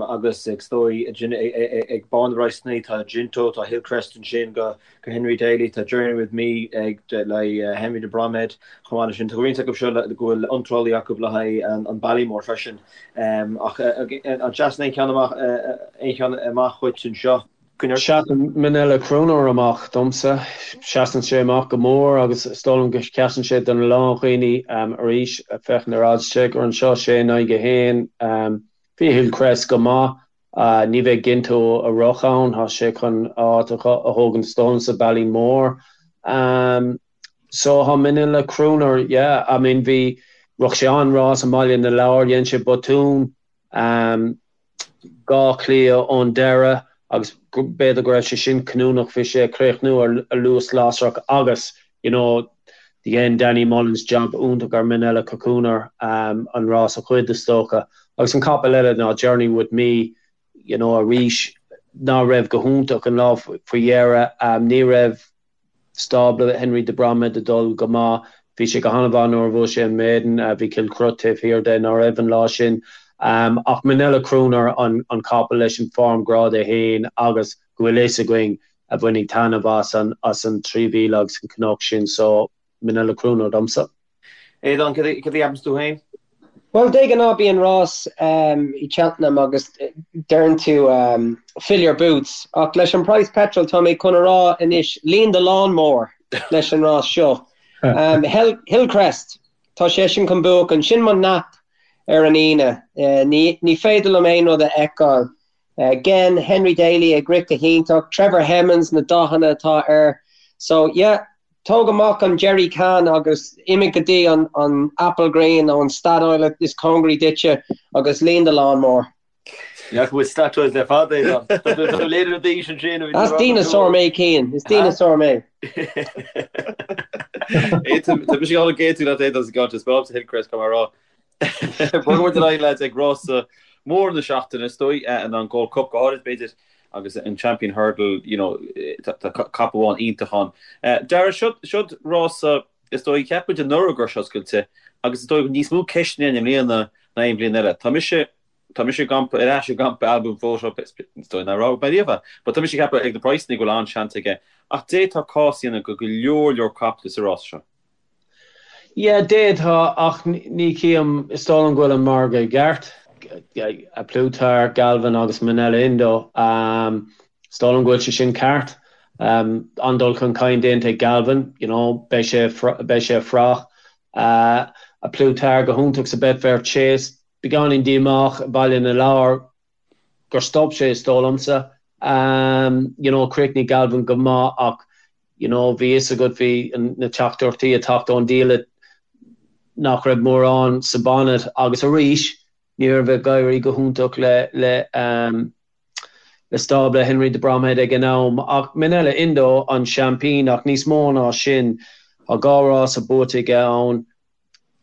agus is dóigh ag barr na bpraghsanna tá Ginto, tá Hillcrest ansin go, go Henry Daly, tá Journey With Me ag le Henry de Bromhead chomh maith leis sin. Tá roinnt acu seo go bhfuil iontrálaí acu le haghaidh an Ballymore freisin. Ach an seasann aon cheann amach aon cheann amach dhuit anseo? Seasann Minella Crooner amach domsa. Seasann sé amach go mór agus is dóigh liom go seasann sé do na lán dhaoine arís. Féachaint ar oddschecker anseo, sé in aghaidh a haon. Bhí Hillcrest go maith. Ní bheidh Ginto ag rith ann, tá sé chun a áit a thógaint is dóigh liom sa Ballymore. So tá Minella Crooner, yeah, I mean bhí, rith sé an-rás i mBaile na Lobhar, dhein sé botún, 2 chliath ón deireadh agus b'fhéidir go raibh sé sin cinniúnach, bhí sé ag críochnú ar luas lasrach agus, you know, dhein Danny Mullins jab iontach ar Minella Crooner an rás a ghoid is dócha. Agus an capall eile ná Journey With Me, you know, arís ná raibh go hiontach an lá faoi dheireadh, ní raibh stábla Henry de Bromhead ag dul go maith. Bhí sé go han-mhaith nuair a bhuaigh sé an Maiden, bhí Kilcruit taobh thiar de ná raibh an lá sin. Ach Minella Crooner an capall leis an form grád 1 agus go bhfuil fhios againn a bhainfidh taitneamh as an as an 3,000 agus an cnoc sin so Minella Crooner domsa. Aodán, cad a cheapanns tú féin? Bhuel, de ghnáth bíonn rás i Cheltenham agus deireann tú fill your boots ach leis an praghas petrol tá mé chun a rá anois líon do lawnmower leis an rás seo. Hillcrest, tá seisean chun buachan, sin mo nap ar an Aoine. Ní féidir liom aon rud a fheiceáil. Again, Henry Daly ag rith go hiontach, Trevor Hemmings, na dathanna atá air. So, yeah, tóg amach an jerry can agus imigh go dtí an an Applegreen nó an Statoil is cóngaraí duitse agus líon do lawnmower. Ní fhaca muid Statoil le fada, Aodán. Tá tú léirithe d'aois ansin. Is dineasár mé, Cian. Is dineasár mé. Tá mise ag dul ag aontú leat Aodán sa gceann seo, is breá liomsa Hillcrest, caithfidh mé a rá. Bogfaidh muid ar aghaidh leaids ag rása mór na seachtaine is dóigh, an Gold Cup go háirid b'fhéidir. Agus an Champion Hurdle, you know, tá capall amháin iontach ann. Dara, siod rása, is dóigh, cheap muid anuraidh go raibh sé oscailte agus is dóigh go bhfuil níos mó ceisteanna ann i mbliana ná aon bhliain eile. Tá mise, tá mise i gcampa, ar ais i gcampa Al Boum Photo, is dóigh nár fhág mé riamh é, but tá mise ag ceapadh ag na praghsanna go bhfuil an-seans aige. Ach d'fhéadfá cás a dhéanamh do go leor leor caiple sa rás seo. Yeah, d'fhéadfá, ach ní chím, is dóigh liom go bhfuil an margadh i gceart. A Plus Tard, Galvin agus Minella Indo. Is dóigh liom go bhfuil sé sin ceart. An-dul chun cinn déanta ag Galvin, you know, beidh sé, beidh sé fraoch. A Plus Tard go hiontach sa Betfair Chase, beagáinín díomách i Baile na Lobhar. gur stop sé is dóigh liomsa. You know, chríochnaigh Galvin go maith ach you know, bhí fhios agat, bhí na teachtaireachtaí ag teacht ón diallait nach raibh mórán sa bonnet agus arís ní raibh ag éirí go hiontach le le le stábla Henry de Bromhead ag an am. Ach Minella Indo an seaimpín ach níos mó ná sin, tá dhá rása buaite aige ann.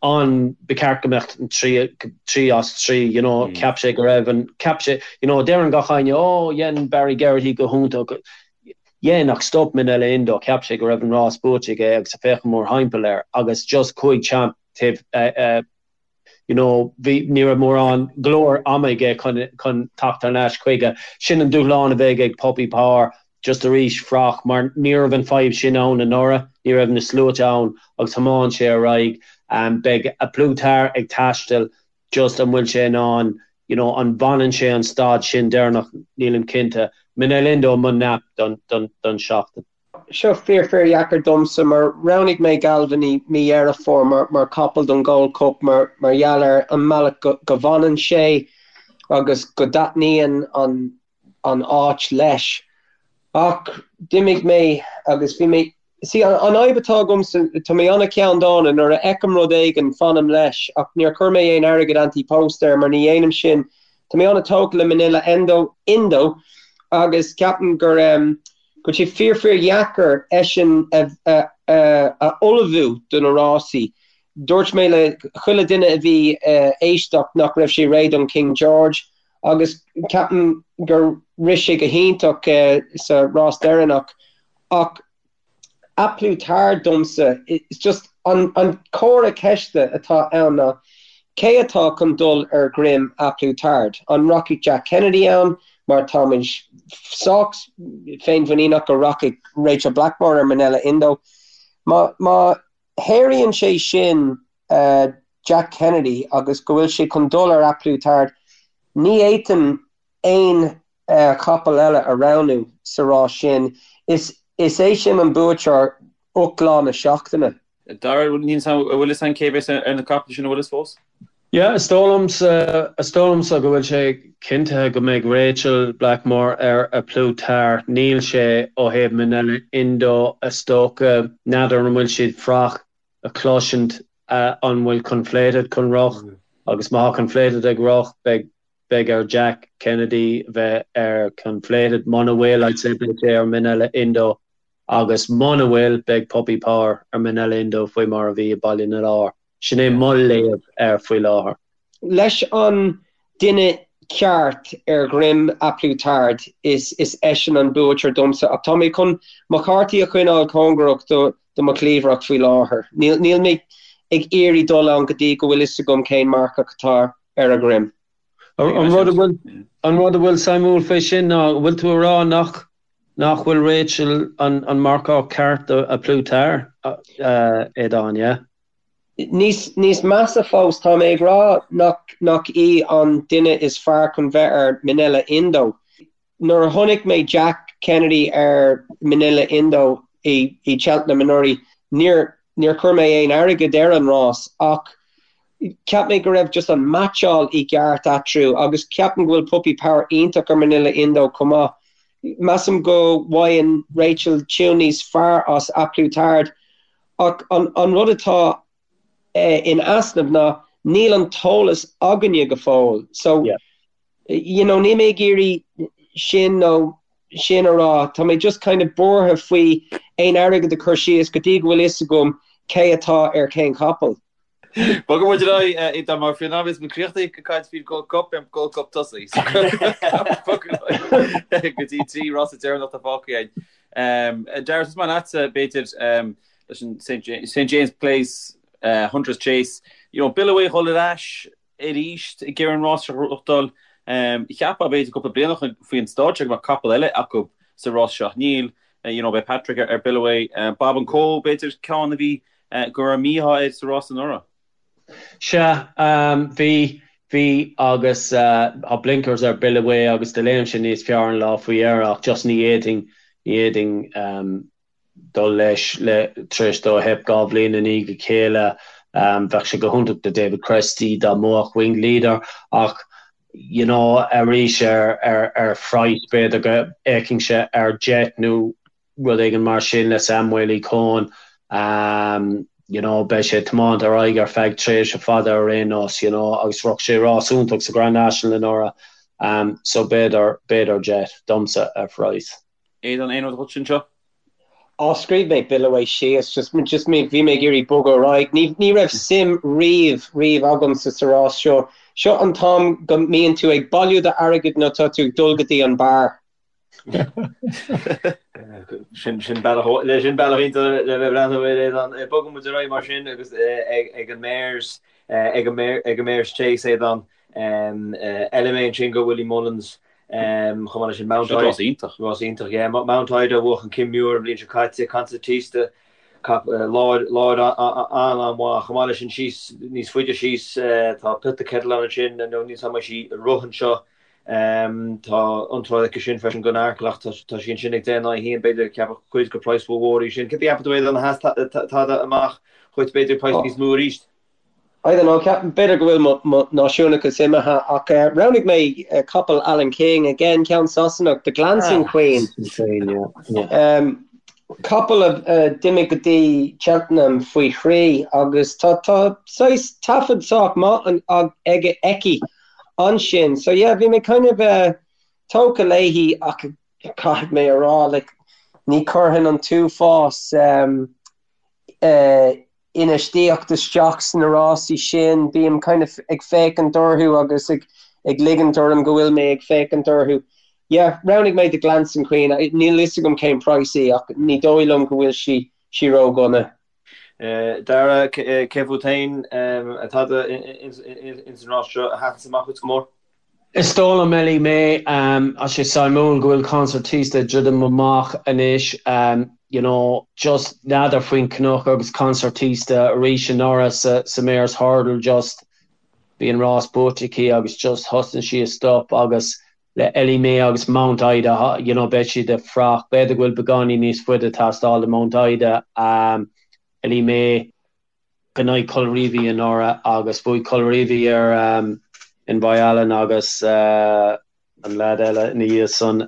an, ba cheart go mbeadh an 3 as 3, you know, cheap sé go raibh an, cheap sé, you know, deireann gach éinne, oh, dhein Barry Geraghty go hiontach, dhein ach stop Minella Indo, cheap sé go raibh an rás buaite aige agus ag féachaint mórthimpeall air agus just chuaigh Champ taobh, you know, bhí, ní raibh mórán, go leor ama aige chun, chun teacht thar n-ais chuige. Sin an dúshlán a bheidh ag Puppy Power. just arís fraoch mar ní raibh an fadhb sin ann anuraidh, ní raibh na sluaite ann agus thiomáin sé ar aghaidh. Beidh A Plus Tard ag taisteal, just an bhfuil sé in ann, you know, an bhfanann sé an stad sin deireanach, nílim cinnte. Minella Indo mo nap don, don, don seachtain. Seo fíor fíor dheacair domsa mar roghnaigh mé Galvin i mí Dheireadh Fómhair mar, mar capall don Gold Cup mar, mar gheall ar an mbealach go, go bhfanann sé agus go dtaitníonn an, an áit leis. Ach d'imigh mé agus bhí mé, see, an fhadhb atá agamsa, tá mé an-cheanndána, nuair a fheicim rud éigin, fanaim leis, ach níor chuir mé aon airgead ante-post air mar ní dhéanaim sin. Tá mé an-tógtha le Minella Endo, Indo agus ceapaim gur, go bhfuil sé fíor fíor dheacair eisean a, a, a ullmhú do na rásaí. Dúirt mé le chuile duine a bhí ag éisteacht nach raibh sé réidh don King George. agus ceapaim gur rith sé go hiontach sa rás deireanach ach A Plus Tard domsa, it's just an comhartha ceiste atá ann ná cé atá chun dul ar dhroim A Plus Tard? An rachaidh Jack Kennedy ann mar tá muid sách féinmhuiníneach go rachaidh Rachel Blackmore ar Minella Indo? Má má sháraíonn sé sin Jack Kennedy agus go bhfuil sé chun dul ar A Plus Tard, ní fhéadfainn aon chapall eile a roghnú sa rás sin. Is é sin an buaiteoir ucht lá na seachtaine. Dara, an bhfuil fhios a'inn cé a bheas ar na caiple sin, an bhfuil fhios fós? Yeah, is dóigh liomsa, is dóigh liomsa go bhfuil sé cinntithe go mbeidh Rachel Blackmore ar A Plus Tard. Níl sé ó thaobh Minella Indo, is dócha. N'fheadar an bhfuil siad fraoch a chloisint an bhfuil Conflated chun rith agus má tá Conflated ag rith, beidh, beidh ar Jack Kennedy bheith ar Conflated. Muna bhfuil, I'd say beidh sé ar Minella Indo agus muna bhfuil, beidh Puppy Power ar Minella Indo faoi mar a bhí i Baile na Lobhar. Sin é mo léamh air faoi láthair. Leis an duine ceart ar dhroim A Plus Tard, is eisean an buaiteoir domsa ach tá mé chun mo chártaí a choinneáil cóngarach do mo chliabhrach faoi láthair. Níl mé ag iarraidh dul ann go dtí go bhfuil fhios agam cén marcach atá ar a dhroim. An rud a bhfuil an rud a bhfuil suimiúil fé sin ná, an bhfuil tú a rá nach nach bhfuil Rachel an an marcach ceart do A Plus Tard, Aodán, yeah? Níos níos measa fós, tá mé ag rá nach nach í an duine is fearr chun bheith ar Minella Indo. Nuair a chonaic mé Jack Kennedy ar Minella Indo i i Cheltenham anuraidh, níor níor chuir mé aon airgead ar an rás ach cheap mé go raibh just an meaitseáil i gceart eatarthu agus ceapaim go bhfuil Puppy Power iontach ar Minella Indo chomh maith. Measaim go bhfaigheann Rachel tiún níos fearr as A Plus Tard ach an an rud atá in easnamh ná níl an t-eolas againne go fóill. So you know níl mé ag iarraidh sin nó sin a rá, tá mé just kind of buartha faoi aon airgead a chur síos go dtí go bhfuil fhios agam cé atá ar cén chapall. Bogfaidh muid ar aghaidh Aodán mar faoin am a bheas muid críochnaithe ag caint faoin Gold Cup, beidh an Gold Cup tosaithe. Go dtí an trí rás deireanach atá fágtha againn. Dara, tosóidh mé leatsa b'fhéidir leis an St James Place, Hunters Chase. You know, Billaway a dhul ar ais arís ag iarraidh an rás seo a ghnóthachtáil. Cheapfá b'fhéidir cúpla bliain ó shin faoin stáid seo go mbeadh capall eile acu sa rás seo ach níl. You know, beidh Patrick ar Billaway. Bob and Co b'fhéidir ceann a bhí go raibh mí-ádh air sa rás anuraidh. Sea, bhí, bhí agus tá blinkers ar Billaway agus do léim sé níos fearr an lá faoi dheireadh ach just ní fhéadfainn, ní fhéadfainn dul leis le, tar éis dó theip 2 bhliain i ndiaidh a chéile. Bheadh sé go hiontach do David Christie dá mbuafadh Winged Leader ach you know arís ar, ar, ar phraghas b'fhéidir go bhféachfainnse ar Jet nó rud éigin mar sin le Sam Waley-Cohen. You know, beidh sé ag tiomáint ar aghaidh ar feadh tréimhse fada ar aon nós, you know, agus shroich sé rás iontach sa Grand National anuraidh. So b'fhéidir, b'fhéidir Jet, domsa, ar phraghas. Aodán, aon rud dhuit anseo? Á, scríobh mé Billaway síos, just, just mé, bhí mé ag iarraidh bogadh ar aghaidh. Ní, ní raibh suim riamh, riamh agamsa sa rás seo. Seo an t-am go mbíonn tú ag bailiú d'airgid nó tá tú ag dul go dtí an beár. Sin bealach le sin bealach iontach le bheith breathnú ar Aodán. Bogann muid ar aghaidh mar sin agus ag an Mares ag an Mares Chase Aodán. Elimay ansin do Willie Mullins chomh maith leis sin Mount Ida. Rás iontach. Rás iontach, yeah. Mount Ida a bhuaigh an Kim Muir an bhliain seo caite, Concertista láir an-an-mhaith. Chomh maith leis sin síos níos faide síos tá Put the Kettle On ansin nó níl a fhios agam an mbeidh sí ag rith anseo. Tá iontráil aici sin freisin don Arkle ach tá sí ansin ag 10 in aghaidh 1, b'fhéidir ceapadh cuid gur praghas rómhór í sin. Céard a cheapann tú Aodán, a sheas tada amach dhuit b'fhéidir praghas níos mó arís? I don't know, ceapaim b'fhéidir go bhfuil mo náisiúnachas imithe ach roghnaigh mé capall Alan King, again ceann Sasanach, The Glancing Queen. Capall a d'imigh go dtí Cheltenham faoi thrí agus tá saghas taifead sách maith aige, aici ansin. So yeah, bhí mé kind of tógtha léi ach caithfidh mé a rá like ní chuirfinn an t-uafás infheistíocht isteach sna rásaí sin, bím kind of ag féachaint orthu agus ag ag ligint orm go bhfuil mé ag féachaint orthu. Yeah, roghnaigh mé The Glancing Queen, níl a fhios agam cén praghas í ach ní dóigh liom go bhfuil sí sí ródhona. Dara, cé fút féin tada ins an rás seo a sheasann amach dhuit go mór? Is dóigh liom, Ellie Mae, tá sé suimiúil go bhfuil Concertista ag druidim amach anois, you know, just n'fheadar faoin cnoc agus Concertista arís anuraidh sa sa Mares Hurdle just bhí an rás buaite aici agus just thosnaigh sí ag stop agus le Ellie Mae agus Mount Ida, you know, beidh siad ag fuireach. B'fhéidir go bhfuil beagáinín níos faide ag teastáil do Mount Ida, Ellie Mae in aghaidh Colreevy anuraidh agus bhuaigh Colreevy ar Envoi Allen agus an leaid eile ina dhiaidh san.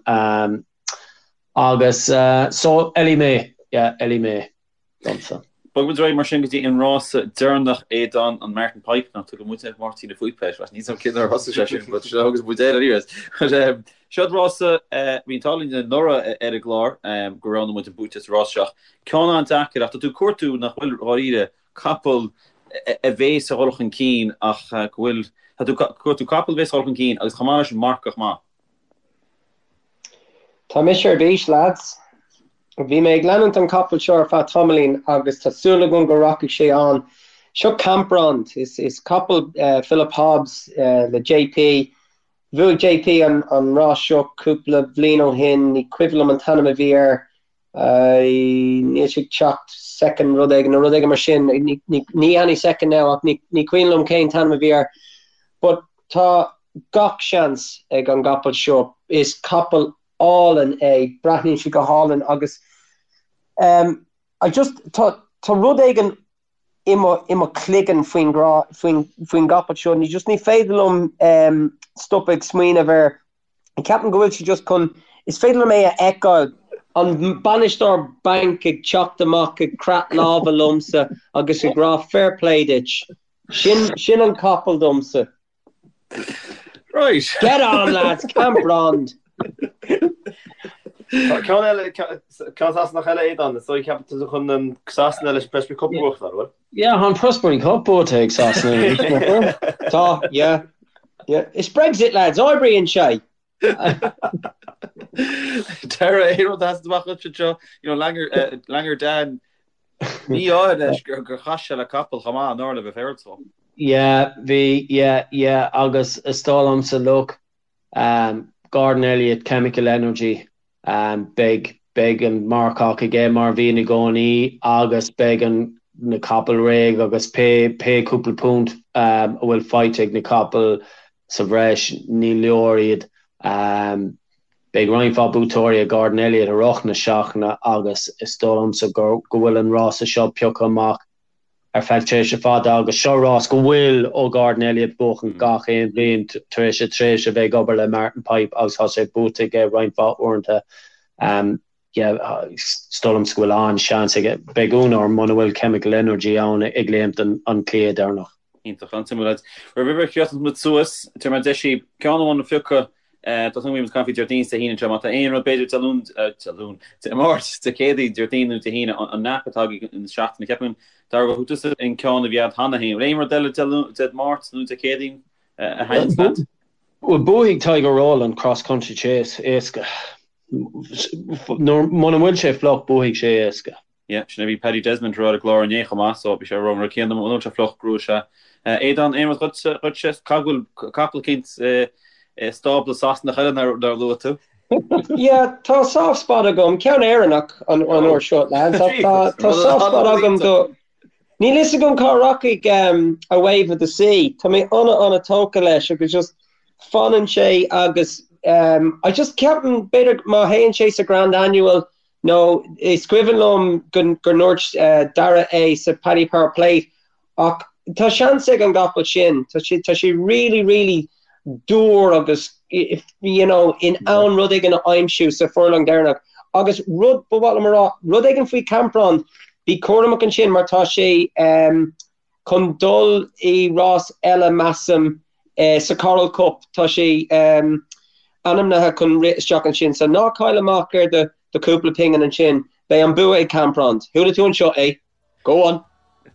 Agus so Ellie Mae, yeah, Ellie Mae domsa. Bogfaidh muid ar aghaidh mar sin go dtí an rása deireanach, Aodán, an Martin Pipe, nach dtugann muid ar Mháirtín an Phúipe air, níl 's agam cén uair a thosaigh sé sin, but seo agus muid air anyways. But um, seo rása, uh, bhí an t-ádh linn anuraidh ar an gclár um, go roghnaigh muid an buaiteoir sa rás seo. Ceann an-deacair ach tá tú ag cuartú nach bhfuil dháiríre capall a bhéas a dhul chun cinn ach go bhfuil, tá tú ag cuartú capall a bhéas a dhul chun cinn agus chomh maith leis an marcach maith. Tá mise ar bís, lads. Bhí mé ag leanúint an capall seo ar feadh tamaillín agus tá súil agam go rachaidh sé an. Seo Camprond. Is capall Philip Hobbs le JP. Bhuaigh JP an rás seo cúpla bhliain ó shin, ní cuimhin liom an t-ainm a bhí air. Níl sé ag teacht second rud éigin nó rud éigin mar sin. Ní any second now ach ní cuimhin liom cén t-ainm a bhí air. But tá gach seans ag an gcapall seo. Is capall álainn é, breathnaíonn sé go hálainn agus um, I just tá tá rud éigin i mo i mo chloigeann faoin grá faoin faoin gcapall seo ní just ní féidir liom um, stop ag smaoineamh air. Ceapaim go bhfuil sé just chun is féidir liom é a fheiceáil an bainisteoir bainc ag teacht amach ag croitheadh lámha liomsa agus ag rá fair play duit. Sin sin an capall domsa. Right. Get on lads, Camprond! Ceann eile, ceann Sasanach eile Aodán, is dóigh ceapann tú chun an Sasana leis an Prestbury Cup a bhuachtáil, an bhfuil? Yeah, tá an Prestbury Cup buaite ag Sasana. Tá, yeah. Yeah. Is Brexit lads, oibríonn sé! Dara, aon rud a sheasann amach duit anseo, you know, Langer, eh, Langer Dan, mí-ádh leis gur gur chas sé le capall chomh maith anuraidh le bheith féaráilte dó. Yeah, bhí, yeah, yeah, agus is dóigh liomsa, look, um, Gordon Elliott, Chemical Energy, um, beidh, beidh an marcach aige mar a bhíonn i gcónaí agus beidh an, na capaill réidh agus pé, pé cúpla punt, um, a bhfuil faighte ag na capaill sa bhreis, ní leor iad. Um, beidh roinnt mhaith buaiteoirí ag Gordon Elliott i rith na seachtaine agus is dóigh liomsa go, go bhfuil an rása seo pioctha amach ar feadh tréimhse fada agus seo rás go bhfuil ó Gordon Elliott buachan gach aon bhliain tar éis a tréimhse a bheith ag obair le Martin Pipe agus tá sé buaite aige roinnt mhaith uaireanta. Is dóigh liomsa go bhfuil an-seans aige. Beidh ionadh orm muna bhfuil Chemical Energy ann ag léimt an cliath deireanach. Iontach, an-suimiúil lads. Roimh a chríochnós muid suas, tabharfaidh mé deis daoibh ceann amháin a phiocadh Tá súil agam go mbeidh muid ag caint faoi Déardaoin is Dé hAoine anseo. Má tá aon rud, b'fhéidir Dé Luain, Dé Luain, Dé Máirt, Dé Céadaoin, Déardaoin nó Dé hAoine, an nap atá agaibh an seachtain. Ceapaim, Dara, gur thug tusa an ceann a bhí agat cheana féin. Bhfuil aon rud eile Dé Luain, Dé Máirt nó Dé Céadaoin a thaitníonn leat? Bhuel, buafaidh Tiger Roll an Cross Country Chase éasca. Muna bhfuil sé fliuch, buafaidh sé éasca. Yeah, sin a bhí Paddy Desmond a rá ar an gclár inné chomh maith, so bhí sé ag rá an rud céanna, muna bhfuil sé fliuch, gnóthóidh sé. Aodán, aon rud dhuitse, dhuitse, caithfidh go bhfuil capall eicínt i stábla Sasanach eile nár luaigh tú? Yeah, tá soft spot agam, ceann Éireannach an uair seo, lads, ach tá tá soft spot agam do Níl fhios agam cá rachaidh A Wave of the Sea, tá mé ana ana tógtha leis agus just fanann sé agus I just ceapaim b'fhéidir má théann sé sa Grand Annual Nó is cuimhin liom go ndúirt Dara é sa Paddy Power Plate ach tá seans ag an gcapall sin, tá sé, tá sé really, really dúr agus you know in ann rud éigin a aimsiú sa furlong deireanach. Agus rud ba mhaith liom a rá, rud éigin faoi Camprond, bí cúramach ansin mar tá sé chun dul i rás eile measaim sa Coral Cup, tá sé ainmnithe chun rith isteach ansin so ná caill amach ar do do chúpla pingin ansin, beidh an bua ag Camprond. Chuala tú anseo é. Go on!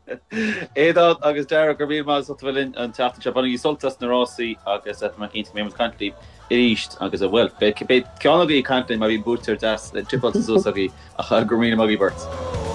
Aodán agus Dara, go raibh míle maith as ucht a bheith linn an tseachtain seo. Bainigí sult as na rásaí agus tá mé cinnte go mbeidh muid ag caint libh arís agus, bhuel, beidh ceann agaibh ag caint linn má bhíonn buaiteoir deas tipeáilte suas agaibh ach go raibh míle maith agaibh beirt.